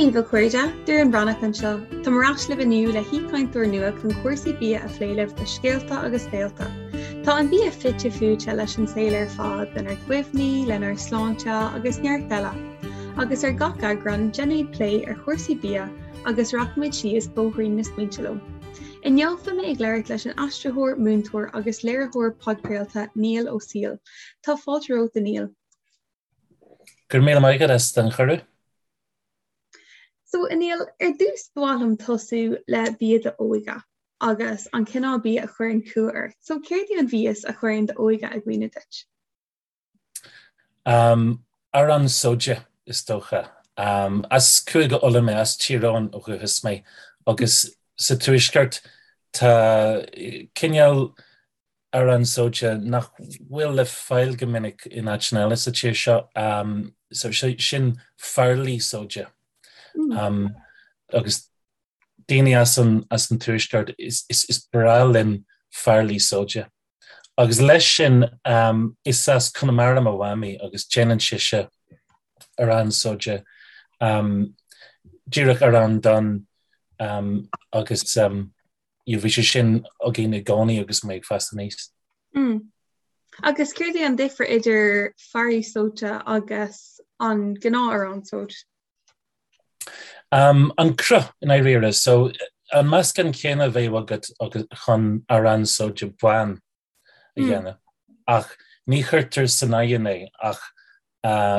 Dia daoibh a chairde, Doireann Bhreathnach anseo. Táim ar ais libh inniu le haoichainteoir nua chun cúrsaí bia a phlé libh le scéalta agus béilte. Tá an bia fite fuaite leis an saol ar fad, lenár gcuimhní, lenár sláinte agus neart eile. Agus ar gach eagrán, déanfaimid plé ar chúrsaí bia agus rachaimid síos bóithrín na smaointe leo. Inniu beidh mé ag labhairt leis an aistritheoir, múinteoir agus léiritheoir podchraolta Niall Ó Siail. Tá fáilte romhat a Niall. Go raibh míle maith agat as an chuireadh. So a Niall, ar dtús ba mhaith liom tosú le bia d'óige agus an cineál bia a chuireann cumha ort. So céard é an mhias a chuireann d'óige i gcuimhne duit? Arán sóide, is dócha. As Cúige Uladh mé, as Tír Eoghain ó dhúchas mé, agus sa Tuaisceart tá cineál arán sóide nach bhfuil le fáil go minic in áiteanna eile sa tír seo, so sin farlaí sóide. Agus daoine as an Tuaisceart, is breá linn farlaí sóide. Agus leis sin, is as Conamara mo mhamaí agus déanann sise arán sóide, díreach arán donn agus bhí sé sin againn i gcónaí agus mé ag fás aníos. Agus céard é an difear idir farlaí sóite agus an gnáth-arán sóid? An cruth, i ndáiríre. So, an meascán céanna a bheadh agat chun arán sóide bán a dhéanamh, ach ní chuirtear san oigheann é ach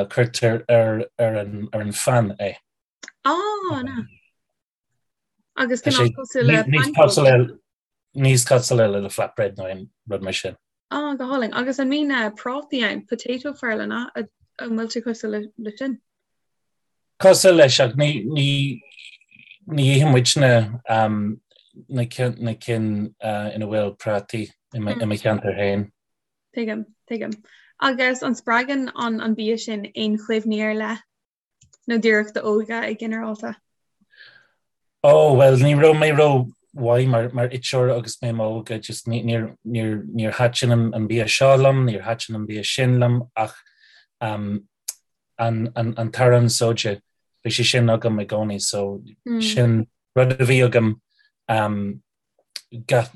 cuirtear ar an phan é. Ah, na. Agus cineál cosúil le pancóg. Níos cosúla le flatbread nó aon rud mar sin. Ah, go hálainn. Agus an mbíonn prátaí ann, potato farla, an an bhfuil sé cosúil le sin? Cosúil leis, ach ní ní ní itheann muidne na na cinn ina bhfuil prátaí i mo cheantar féin. Tuigim, tuigim. Agus an spreagann an an bia sin aon chuimhní ar leith? Nó díreach d'óige i ginearálta? Ó, bhuel, ní raibh mé ró-mhaith mar, mar iteoir agus mé m'óige, just ní, níor, níor, níor thaitin an, an bia seo liom, níor thaitin an bia sin liom, ach um, an, an, an t-arán sóide, bhí sé sin agam i gcónaí, so mm. sin rud a bhí agam um, gach,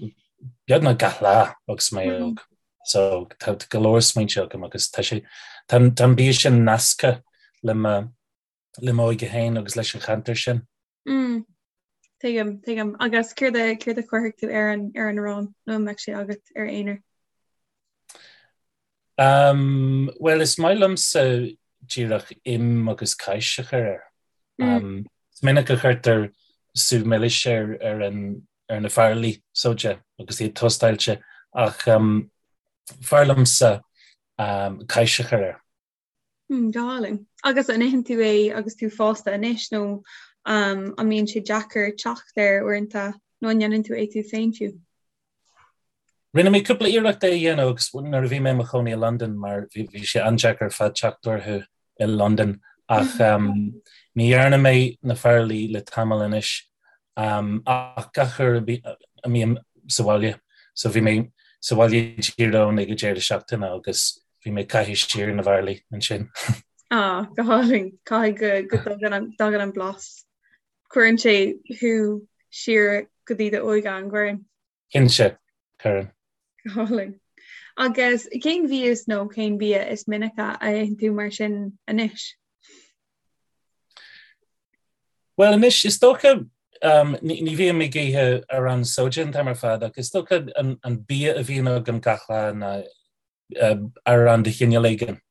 beagnach gach lá agus mé mm. óg. So tá go leor smaointe agam agus tá sé tá an bia sin nasctha le mo le m'óige féin agus leis an cheantar sin. Mm. Tuigim, tuigim. Agus céard a céard a chuirfeadh tú ar an ar an arán nó an mbeadh sé agat ar aonar? Um, well is maith liomsa díreach im agus cáis a chur air. Mm. Um, is minic a chuirtear sú milis ar, ar, an, ar na farlaí sóide agus iad tóstáilte ach um, b'fhearr liomsa um, cáis a chur air. Mm, go hálainn. Agus an itheann tú é agus tú fásta anois nó um, an mbíonn sé deacair teacht air uaireanta nó an ndéanann tú é tú féin fiú? Rinne mé cúpla iarracht é a dhéanamh agus nuair a bhí mé i mo chónaí i Londain mar bhí bhí sé an-deacair ar fad teacht orthu i Londain ach um, ní dhearna mé na farlaí le tamall anois um, ach gach uair a mbím sa bhaile so bhí mé sa bhaile i dTír Eoghain ag an deireadh seachtaine agus bhí mé ag caitheamh siar na bhfarlaí ansin. Ah, go hálainn. Caithfidh go go dtagann an dtagann an blas. Cuireann sé thú siar go dtí d'óige an gcuireann? Cinnte, cuireann. Go hálainn. Agus cén mhias nó cén bia is minice a itheann tú mar sin anois? Bhuel anois, is dócha, um, ní, ní bhím ag ithe arán sóide an t-am ar fad ach is dócha an, an bia a bhíonn agam gach lá ná uh, arán de chineál éigin.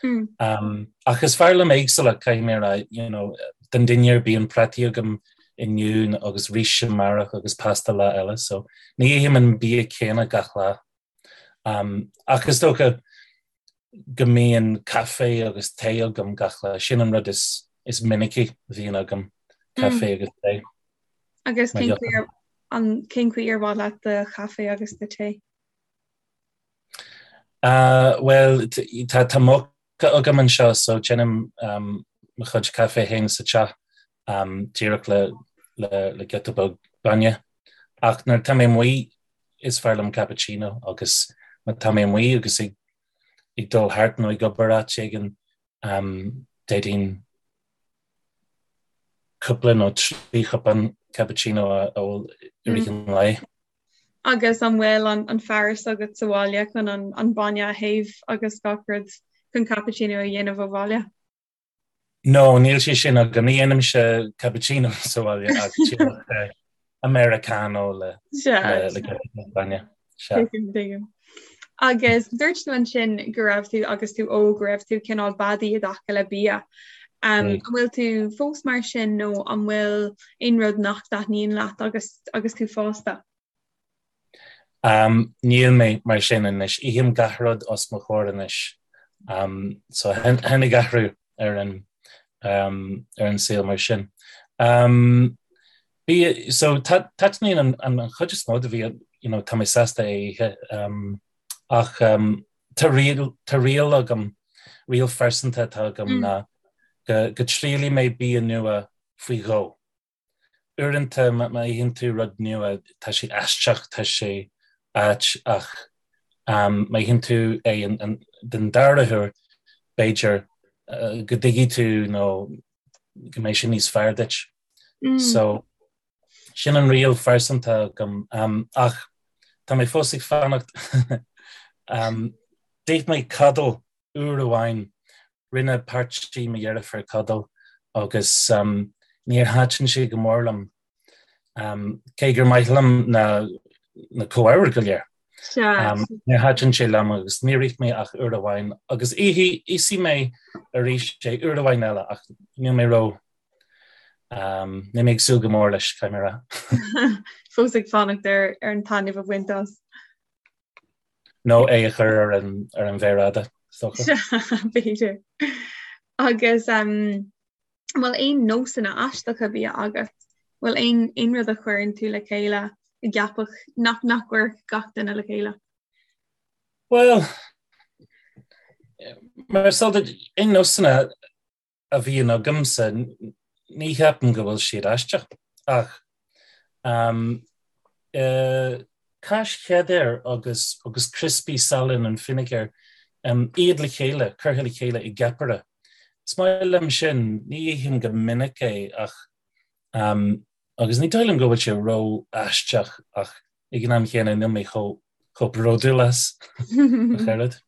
Mm. Ach is fearr liom éagsúlacht, caithfidh mé a rá, you know, don dinnéar bíonn prátaí agam inniu agus rís amárach agus pasta lá eile, so ní ithim an bia céanna gach lá. Um, ach is dócha go mbíonn caife agus tae agam gach lá, sin an rud is, is minicí a bhíonn agam, caife mm. agus tae. Agus cén chaoi ar, an, cén chaoi ar mhaith leat do chaife agus do tae? Bhuel, tá moka agam anseo so déanaim mo chuid caife féin sa teach díreach le le giota beag bainne. Ach nuair atá mé amuigh is fearr liom cappuccino agus má tá mé amuigh agus ag ag dul thart nó ag obair áit éigin d'fhéadfainn. cúpla nó 3 chupán cappuccino a ól i rith an lae. Agus an bhfuil an fearas agat sa bhaile chun an bainne a théamh agus gach rud chun cappuccino a dhéanamh ó bhaile? No, níl sé sin agam. Ní dhéanaimse cappuccino sa bhaile ach díreach Americano le bainne. Tuigim. Agus dúirt tú ansin go raibh tú agus tú óg go raibh tú cineál beadaí i dtaca le bia. An bhfuil tú fós mar sin nó an bhfuil aon rud nach dtaitníonn leat agus agus tú fásta? Níl mé mar sin anois. Ithim gach rud os mo chomhair anois. So tháinig athrú ar an ar an saol mar sin. Bia, so taitníonn an an chuid is mó de bhia, you know, tá mé sásta é a ithe. Ach tá riail tá riail agam, riail phearsanta atá agam ná go go dtriailfidh mé bia nua faoi dhó. Uaireanta má itheann tú rud nua tá sé aisteach, tá sé ait ach má itheann tú é den dara huair b'fhéidir go dtuigfidh tú nó go mbeidh sé níos fearr duit. So sin an riail phearsanta agam ach tá mé fós ag fanacht. D'ith mé coddle uair amháin Rinne páirtí mo dheirfiúr coddle agus níor thaitin sé go mór liom, cé gur maith liom na na comhábhair go léir. Níor thaitin sé liom agus níor ith mé ach uair amháin agus íosfaidh mé arís é uair amháin eile ach níl mé ró níl mé ag súil go mór leis, caithfidh mé a rá. Fós ag fanacht ar an taitneamh a bhaint as. Nó é a chur ar an ar an mhéar fhada, is dócha. B'fhéidir. Agus an bhfuil aon nósanna aisteacha bia agat? Bhfuil aon aon rud a chuireann tú le chéile a gceapfadh nach nach gcuirfeadh gach duine le chéile? Bhuel, mar is eol duit, aon nósanna a bhíonn agamsa, ní cheapaim go bhfuil siad aisteach, ach cáis cheddar agus agus criospaí salann and fínéagar, iad le chéile, curtha le chéile i gceapaire. Is maith liom sin, ní ithim go minic é ach agus ní dóigh liom go bhfuil sé ró-aisteach ach ag an am chéanna níl mé chomh chomh bródúil as ach oiread.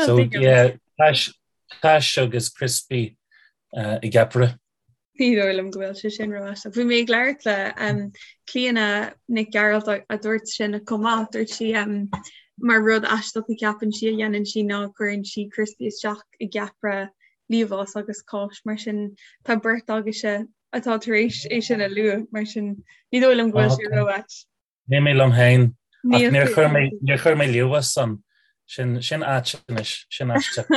So yeah, cáis cáis agus criospaí i gceapaire. Ní dóigh liom go bhfuil sé sin ró-aisteach. Bhí mé ag labhairt le um, Clíona Nic Gearailt a dúirt sin chomh maith, dúirt sí um, mar rud aisteach a cheapann sí a dhéanann sí ná cuireann sí criospaí isteach i gceapaire liamhás agus cáis mar sin tá beirt agaibhse atá tar éis é sin a lua mar sin ní dóigh liom go bhfuil sé ró-ait. Níl mé liom féin ach níor chuir mé níor chuir mé liamhás ann. Sin sin ait anois, sin aisteach.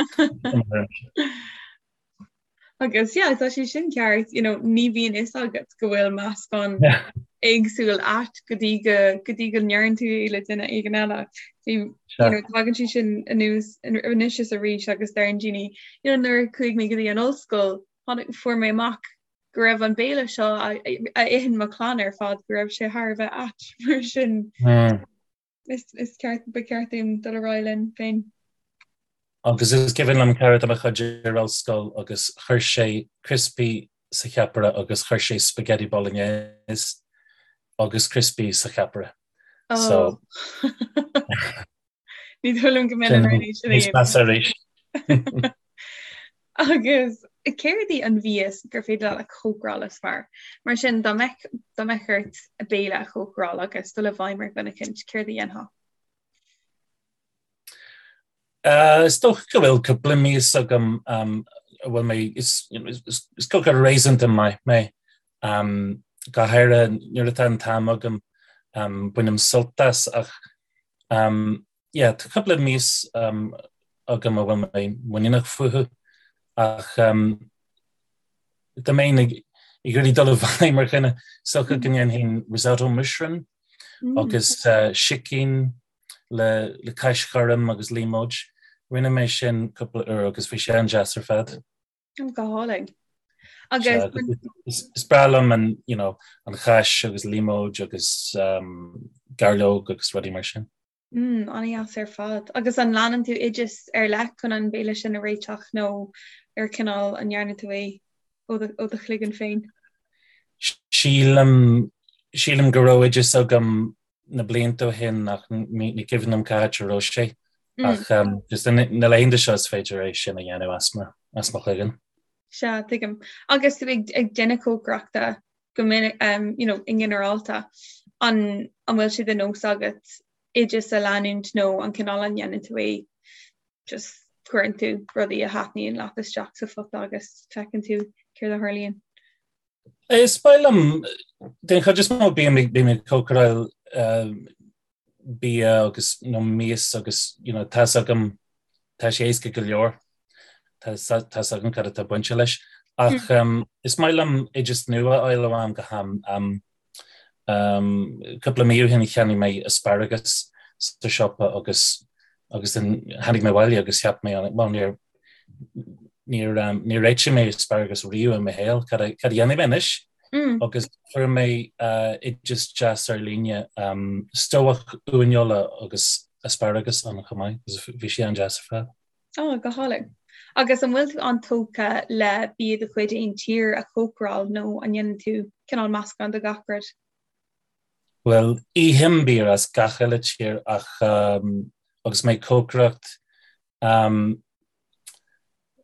Agus yeah, tá sé sin ceart, you know, ní bhíonn fhios agat go bhfuil meascán éagsúil ait go dtí go go dtí go ndeireann tú é le duine éigin eile. Bhí you know, tagann sé sin anuas anois is arís agus deireann daoine, you know, nuair a chuaigh mé go dtí an ollscoil, tháinig fuair mé amach go raibh an béile seo a itheann mo chlann ar fad go raibh sé thar a bheith ait mar sin is is ceart ba cheart dúinn dul ar aghaidh linn féin. Agus is cuimhin liom cara de mo chuid ar ollscoil agus chuir sé criospaí sa cheapaire agus chuir sé spaghetti bolognese agus criospaí sa cheapaire. So Ní dóigh liom go mbeinn in ann é sin a Níos measa arís. Agus céard í an mhias gur féidir leat a chócaráil is fearr? Mar sin dá mbeadh dá mbeadh ort béile a chócaráil agus dul i bhfeidhm ar dhuine eicínt, céard a dhéanfá? Is dócha go bhfuil cúpla mias agam a bhfuil mé is is cócaire réasúnta maith mé. Go háirithe nuair atá an t-am agam bainim sult as ach yeah tá cúpla mias agam a bhfuil mé muiníneach fúthu ach dá mbeinn ag iarraidh dul i bhfeidhm ar dhuine is dócha go ndéanfainn risotto mushroom agus sicín le le cáis ghorm agus líomóid. Rinne mé sin cúpla uair agus bhí sé an-deas ar fad. Go hálainn. Agus is breá liom an, you know, an cháis agus líomóid agus um, gairleog agus rudaí mar sin. Mm, an-deas ar fad. Agus an leanann tú oideas ar leith chun an béile sin a réiteach nó ar cineál an ndearna tú é ó do chloigeann féin? Sílim, sílim go raibh oideas agam na blianta ó shin ach ní cuimhin liom cá háit a raibh sé. Ach just na laethanta seo is féidir é sin a dhéanamh as mo, as mo chloigeann. Sea, tuigim. Agus tú ag, ag déanamh cócaireachta go minic, um, you know, i nginearálta, an, an bhfuil sé de nós agat oideas a leanúint nó an cineál a ndéanann tú é just cuireann tú rudaí a thaitníonn leat isteach sa phota agus feiceann tú céard a tharlaíonn? Is maith liom, den chuid is mó bím ag cócaráil bia agus nó mias agus you know tá's agam tá sé éasca go leor, tá tá's agam cad atá bainte leis. Ach is maith liom oideas nua a fháil ó am go ham. Cúpla mí ó shin cheannaigh mé asparagus sa siopa agus agus then tháinig mé abhaile agus cheap mé well níor níor níor réitigh mé asparagus riamh i mo shaol, cad a cad a dhéanfaidh mé anois? Agus fuair mé oideas deas ar líne, stobhach uaineola agus asparagus ann chomh maith agus bhí sé an-deas ar fad. Ó, go hálainn. Agus an bhfuil tú an-tógtha le bia de chuid aon tír a chócaráil nó an ndéanann tú cineál meascán de gach rud? Bhuel, ithim bia as gach uile tír ach agus mé ag cócaireacht,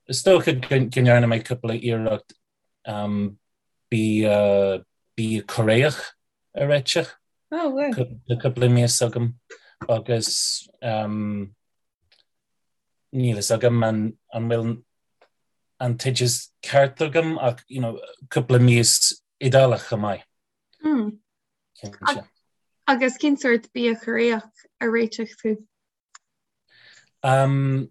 is dócha go ndearna mé cúpla iarracht bia, bia Cóiréach a réiteach. Oh, wow. Tá cúpla mias agam agus níl fhios agam an bhfuil an t-oideas ceart agam ach you know, cúpla mias Iodálach chomh maith. Mm. Cinnte. Agus cén sórt bia Cóiréach a réitigh tú? Um,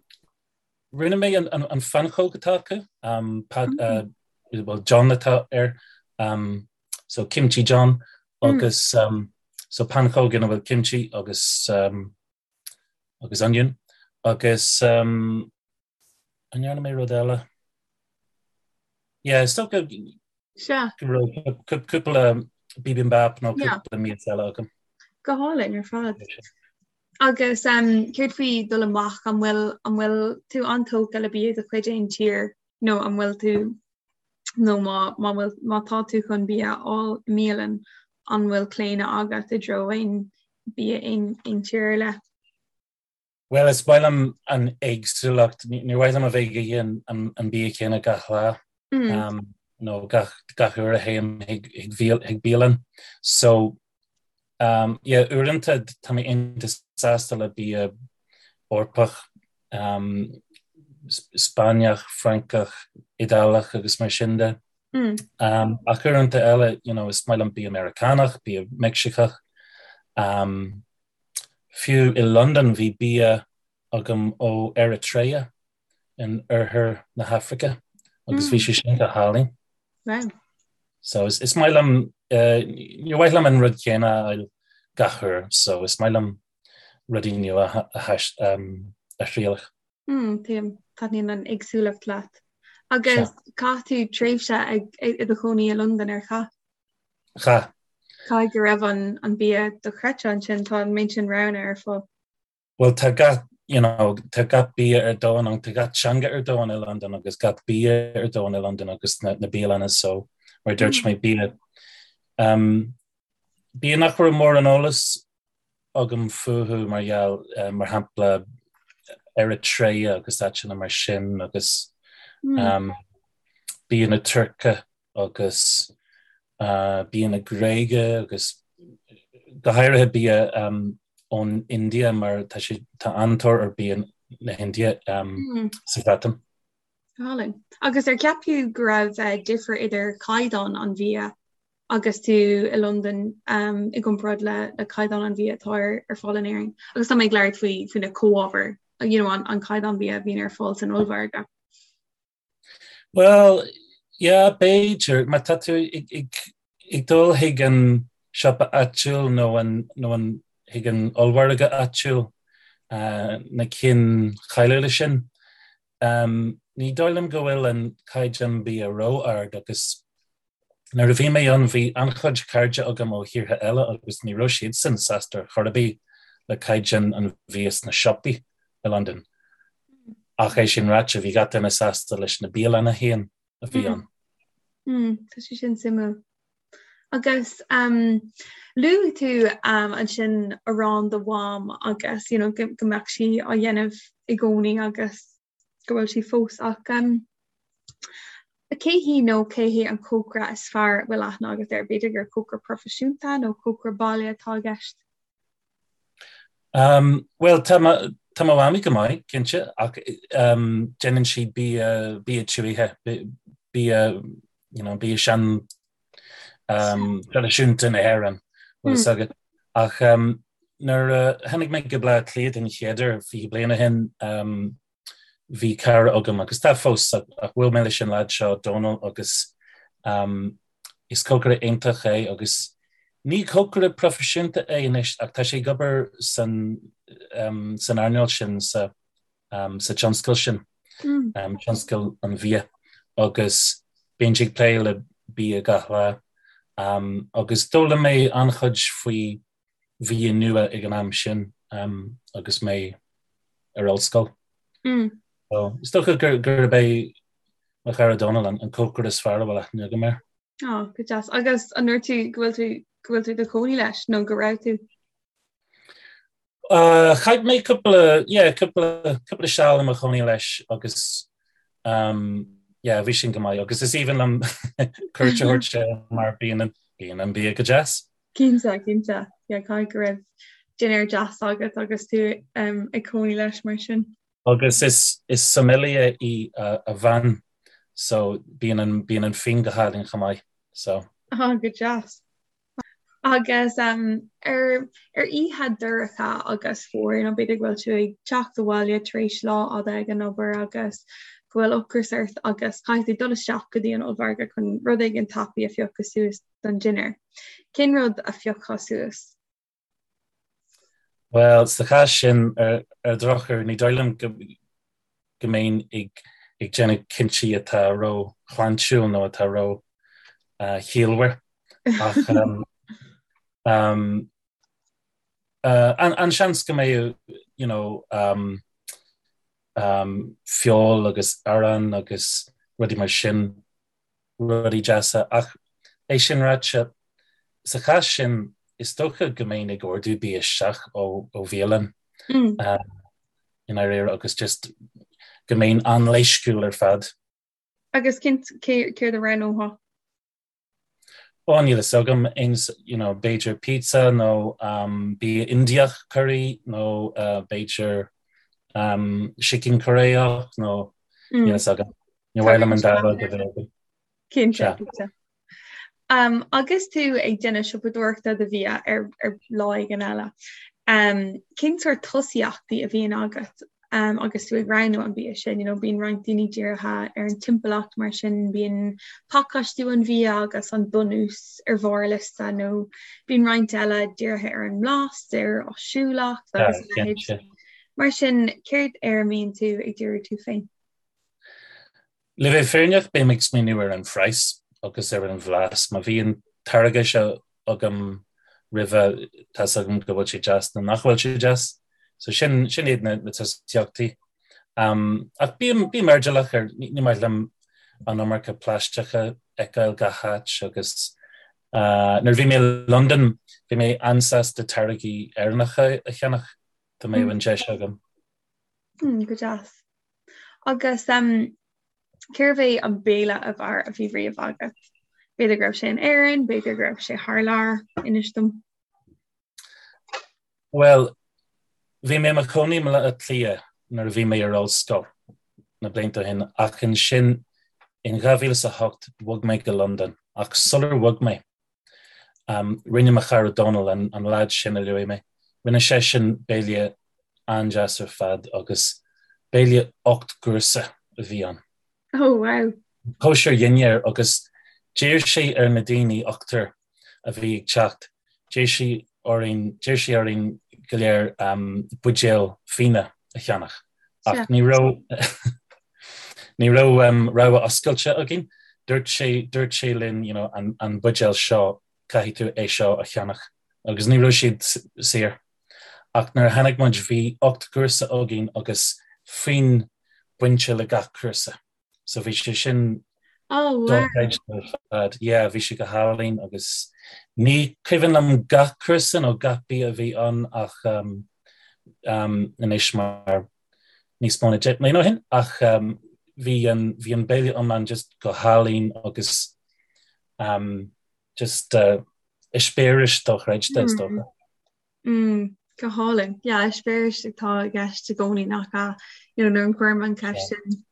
rinne mé an, an, an phancóg atá acu, um, pad, mm. uh, well, jeon atá air, um, so kimchi jeon, mm. agus um, so pancóg ina bhfuil kimchi agus um, agus onion, agus um, an ndearna mé rud eile? Yeah, is dócha go raibh cúpla bibimbap nó cúpla mias eile agam. Go hálainn ar fad. Agus um, céard faoi dul amach an bhfuil an bhfuil tú an-tógtha le bia de chuid aon tír nó an bhfuil tú nó má má bhfuil má tá tú chun bia a fháil i mbialann an bhfuil claonadh agat i dtreo aon bia aon aon tír ar leith? Bhuel, is maith liom an éagsúlacht. Ní mhaith liom a bheith ag ithe an bia céanna gach lá nó gach gach uair a théim chuig bialann. So, um, yeah, uaireanta tá mé iontach sásta le bia Eorpach, um, Spáinneach, Francach, Iodálach agus mar sin de. Um, ach uaireanta eile, you know, is maith liom bia Meiriceánach, bia Meicsiceach. Um, Fiú i Londain bhí bia agam ó Eritrea in oirthear na hAfraice agus bhí sé sin go hálainn. Wow. So is, is maith liom, uh, ní mhaith liom an rud céanna a fháil gach uair, so is maith liom rudaí nua a, a, um, a thrialach. Mm, tuigim, taitníonn an éagsúlacht leat. Agus chaith tú tréimhse ag, i do chónaí i Londain ar chaith? Chaith. Caithfidh go raibh an, an bia dochreidte ansin, tá an méid sin roghanna ar fáil. Bhuel tá gach, you know, tá gach bia ar domhan ann, tá gach teanga ar domhan i Londain agus gach bia ar domhan i Londain agus na, na bialanna so mar a dúirt mé bia um, bia nach raibh mórán eolas agam fúthu mar gheall, mar shampla, Eritrea agus áiteanna mar sin agus bia na Tuirce agus bia na Gréige agus go háirithe bia ón India mar tá sé tá an-tóir ar bia na hIndia sa Bhreatain. Go hálainn. Agus ar cheap tú go raibh difear idir caighdeán an bhia agus tú i Londain i gcomparáid le le caighdeán an bhia atá ar ar fáil in Éirinn. Agus tá mé ag labhairt faoi faoi na comhábhair, you know, an an caighdeán bia a bhíonn ar fáil san ollmhargadh. Well, yeah, b'fhéidir, má tá tú ag, ag, ag dul chuig an siopa áitiúil nó an, nó an, chuig an ollmhargadh áitiúil, uh, na cinn cháiliúla sin, um, ní dóigh liom go bhfuil an caighdeán bia ró-ard agus Nuair a bhí mé ann bhí an-chuid cairde agam ó thíortha eile agus ní raibh siadsan sásta ar chor ar bith le caighdeán an bhia sna siopaí i Londain. Ach é sin ráite, bhí gach duine sásta leis na bialanna féin a bhí ann. Tá sé sin suimiúil. Agus um, luaigh tú um, ansin arán do mham agus you know, go, go mbeadh sí á dhéanamh i gcónaí agus go bhfuil sí fós ach um, cé hí nó cé hé an cócaire is fearr a bhfuil aithne agat air? B'fhéidir gur cócaire proifisiúnta nó cócaire baile atá i gceist? Um, Bhuel, tá mo tá mo mhamaí go maith, cinnte, ach um, déanann sí bia bia tuaithe, bia you know, bia sean um, traidisiúnta na hÉireann, bhfuil fhios agat. Ach um, nuair a tháinig mé go Baile Átha Cliath den chéad uair 20 bliain ó shin, um, bhí cara agam agus tá fós ach bhuail mé leis an leaid seo Dónal agus um, is cócaire iontach é agus ní cócaire proifisiúnta é anois ach tá sé ag obair san, um, san earnáil sin sa, um, sa tionscal sin, mm. um, tionscal an bhia agus bíonn sé ag plé le bia gach lá um, agus d'fhoghlaim mé an-chuid faoi bhia nua ag an am sin um, agus mé ar ollscoil. Mm. So, is dócha gur gurb é mo chara Dónal an, an cócaire is fearr a bhfuil aithne agam air. Oh, go deas. Agus an ndúirt tú go bhfuil tú go bhfuil tú i do chónaí leis nó go raibh tú? Uh, chaith mé cúpla yeah, cúpla cúpla seal i mo chónaí leis agus um, yeah, bhí sin go maith agus is aoibhinn liom cuairt a thabhairt air mar bíonn an bíonn an bia go deas. Cinnte, cinnte. Yeah, caithfidh go raibh dinnéar deas agat agus tú um, ag cónaí leis mar sin. Agus is, is sommelier í a, a bhean, so bíonn an, bíonn an fíon go hálainn chomh maith, so. Ah, go deas. Agus um, ar, ar oíche dorcha agus fuar, nó b'fhéidir go bhfuil tú ag teacht abhaile tar éis lá fhada ag an obair agus go bhfuil ocras ort agus caithfidh tú dul isteach go dtí an ollmhargadh chun rud éigin tapaidh a phiocadh suas don dinnéar. Cén rud a phiocfá suas? Bhuel, sa chás sin, ar ar drochuair, ní dóigh liom go go mbeinn ag ag déanamh cinntí atá ró-shláintiúil nó atá ró-chiallmhar. Ach um, um, uh, an, an seans go mbeadh you know, um, um, feoil agus arán agus rudaí mar sin rudaí deasa. Ach é sin ráite, sa chás sin, is dócha go mbeinn ag ordú bia isteach ó bhialann i ndáiríre agus just go mbeinn an-leisciúil ar fad. Agus céard a roghnófá? Ó, níl fhios agam, aon, you know, b'fhéidir pizza nó bia Indiach curry nó b'fhéidir sicín Cóiréach nó níl fhios agam. Ní mhaith liom an dá rud a bheith agam. Cinnte, cinnte. Um, agus tú ag déanamh siopadóireachta do bhia ar, ar lá éigin eile, um, cén sórt tosaíochtaí a bhíonn agat um, agus tú ag roghnú an bia sin? You know, bíonn roinnt daoine dírithe ar an timpeallacht mar sin, bíonn pacáistiú an bhia agus an bunús ar bharr a liosta nó bíonn roinnt eile dírithe ar an mblas, ar áisiúlacht agus a leithéid. Mar sin, céard ar a mbíonn tú ag díriú tú féin? Le bheith fírinneach, bím ag smaoineamh ar an phraghas agus ar an bhlas. Má bhí an táirge seo agam roimhe, tá's agam go bhfuil sé deas nó nach bhfuil sé deas. So sin, sin iad na, na tosaíochtaí. Um, ach bím, bím airdeallach ar, ní, ní maith liom an iomarca plaisteach a fheiceáil gach áit agus uh, nuair a bhí mé i Londain, bhí mé an-sásta táirgí Éireannacha a cheannach, dá mbeadh an deis agam. Mm, go deas. Agus um, cérbh é an béile ab fhearr a bhí riamh agat? B'fhéidir go raibh sé in Éirinn, b'fhéidir go raibh sé thar lear, inis dom. Bhuel, bhí mé i mo chónaí i mBaile Átha Cliath nuair a bhí mé ar ollscoil na blianta ó shin ach ansin in 2008 bhog mé go Londain ach sular bhog mé Rinne mo chara Dónal, an leaid sin a luaigh mé, rinne seisean béile an-deas ar fad agus béile 8 gcúrsa a bhí ann. Oh wow! Cóisir dhinnéir agus d'iarr sé ar na daoine, ochtar a bhí ag teacht, d'iarr sé orainn, d'iarr sé orainn go léir buidéal fíona a cheannach ach ní raibh Ní raibh rogha oscailte againn. Dúirt sé, dúirt sé linn, you know, an, an buidéal seo, caithfidh tú é seo a cheannach. Agus ní raibh siad saor. Ach nuair a tháinig muid, bhí 8 gcúrsa againn agus fíon bainte le gach cúrsa. So bhí sé sin. Oh wow. Dochreidte ar fad. Yeah, bhí sé go hálainn agus ní cuimhin liom gach cúrsa nó gach bia a bhí ann ach um, um, anois mar níos mó ná 10 mbliana ó shin ach um, bhí an, bhí an béile iomlán just go hálainn agus um, just uh, eispéireas dochreidte is dócha. Mm, go hálainn. Yeah, eispéireas atá i gceist i gcónaí nach ea? You know, nuair a chuirim an cheist sin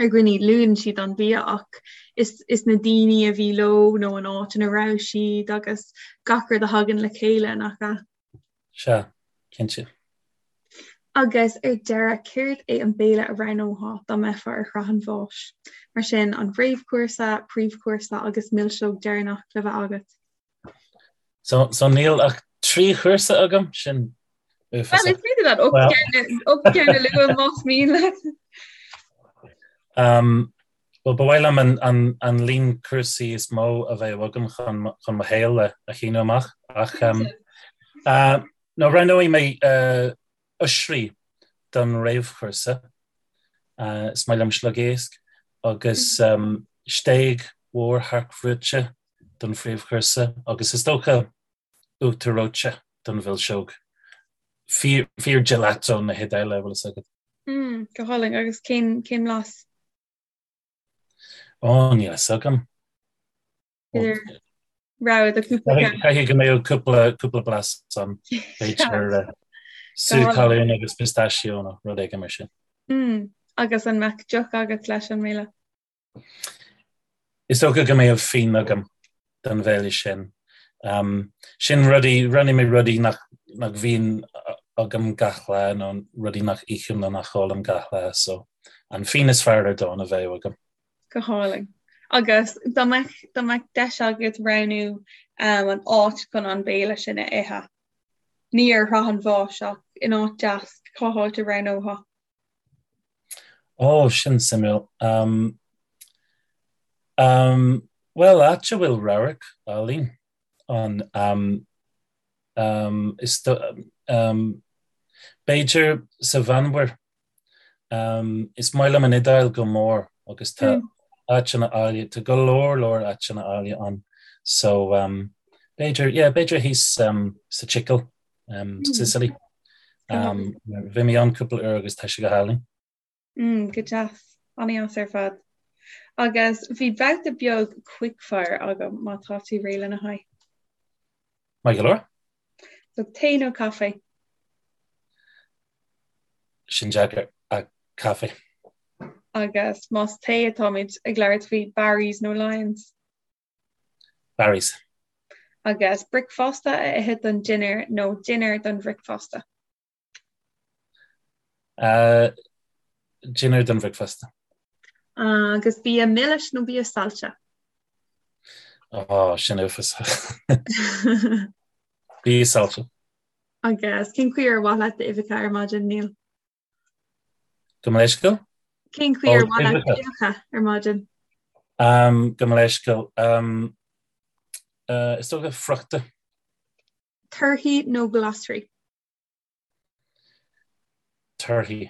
ar dhaoine luann siad an bia ach is, is na daoine a bhí leo nó an áit ina raibh siad agus gach rud a thagann le chéile nach ea? Sea, cinnte. Agus ar deireadh, céard é an béile a roghnófá dá mbeifeá ar shraith an bháis? Mar sin, an réamhchúrsa, príomhchúrsa agus milseog deireanach le bheith agat. So, so níl ach 3 chúrsa agam, sin uafásach. Well, is féidir leat 8 gceann a lua más mian leat. Um, well, ba mhaith liom an, an, an líon cúrsaí is mó a bheadh agam chun, chun mo shaol a, a shíneadh amach. Ach um, uh, no, roghnóidh mé uh, oisrí don réamhchúrsa. Uh, is maith liom sliogéisc agus um, stéig mhór thearcbhrúite don phríomhchúrsa agus is dócha uachtar reoite don mhilseog. Fíor, fíor gelato na hIodáile, bhfuil fhios agat. Mm, go hálainn agus cén, cén blas? Ó, níl fhios agam. Idir rogha de cúpla ceann. Caithfidh go mbeadh cúpla, cúpla blas ann. B'fhéidir eh, sú talún agus pistachio nó rud éigin mar sin. Mm, agus an mbeadh deoch agat leis an mbéile? Is dócha go mbeadh fíon agam don bhéile sin. Sin rudaí, roghnaigh mé rudaí nach nach bhíonn agam gach lá nó rudaí nach ithim nó nach ólaim gach lá, so an fíon is fearr ar domhan a bheadh agam. Go hálainn. Agus dá mbeadh, dá mbeadh deis agat roghnú an áit chun an béile sin a ithe, ní ar shraith an bháis ach in áit deas, cá háit a roghnófá? Ó, sin suimiúil. Um, um, bhuel, áit a bhfuil radharc álainn ann, um, um, is do, um, b'fhéidir sa Mheánmhuir. Um, is maith liom an Iodáil go mór agus tá mm. áiteanna áille, tá go leor leor áiteanna áille ann. So, um, b'fhéidir, yeah, b'fhéidir thíos um, sa tSicil. um, mm. Sicily. Um, bhí mé ann cúpla uair agus tá sé go hálainn. Mm, go deas, an-deas ar fad. Agus bhí babhta beag quickfire agam má tá tú réidh lena haghaidh. Maith go leor? So tae nó caife? Sin deacair ach caife. Agus más tae atáimid ag labhairt faoi Barry's nó Lyons? Barry's. Agus bricfeasta a ithe don dinnéar nó dinnéar don bhricfeasta? Uh, dinnéar don bhricfeasta. Agus bia milis nó bia saillte? Oh, sin uafásach. Bia saillte. Agus cén chaoi ar mhaith leat d'uibheacha ar maidin, Neil? Gabh mo leithscéal? Cén chaoi ar mhaith leat d'uibheacha ar maidin? Gabh mo leithscéal. Is dócha friochta. Torthaí nó glasraí? Torthaí.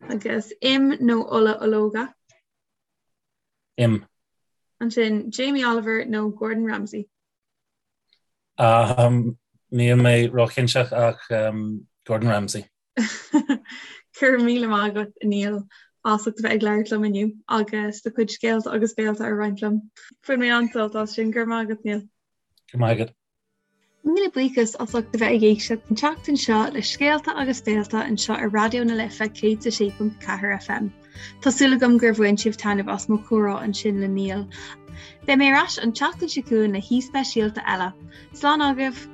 Agus im nó ola ológa? Im. Ansin Jamie Oliver nó Gordon Ramsay? Um, níl mé róchinnte ach um, Gordon Ramsay. Go raibh míle maith agat Neil as ucht a bheith ag labhairt liom inniu agus do chuid scéalta agus béalta a roinnt liom. Bhain mé an-sult as sin, go raibh maith agat Neil. Go raibh maith agat. Míle buíochas as ucht a bheith ag éisteacht an tseachtain seo le Scéalta agus Béalta anseo ar Raidió na Life 106.4 FM. Tá súil agam gur bhain sibh taitneamh as mo chomhrá ansin le Neil. Beidh mé ar ais an tseachtain seo chugainn le haoi speisialta eile. Slán agaibh!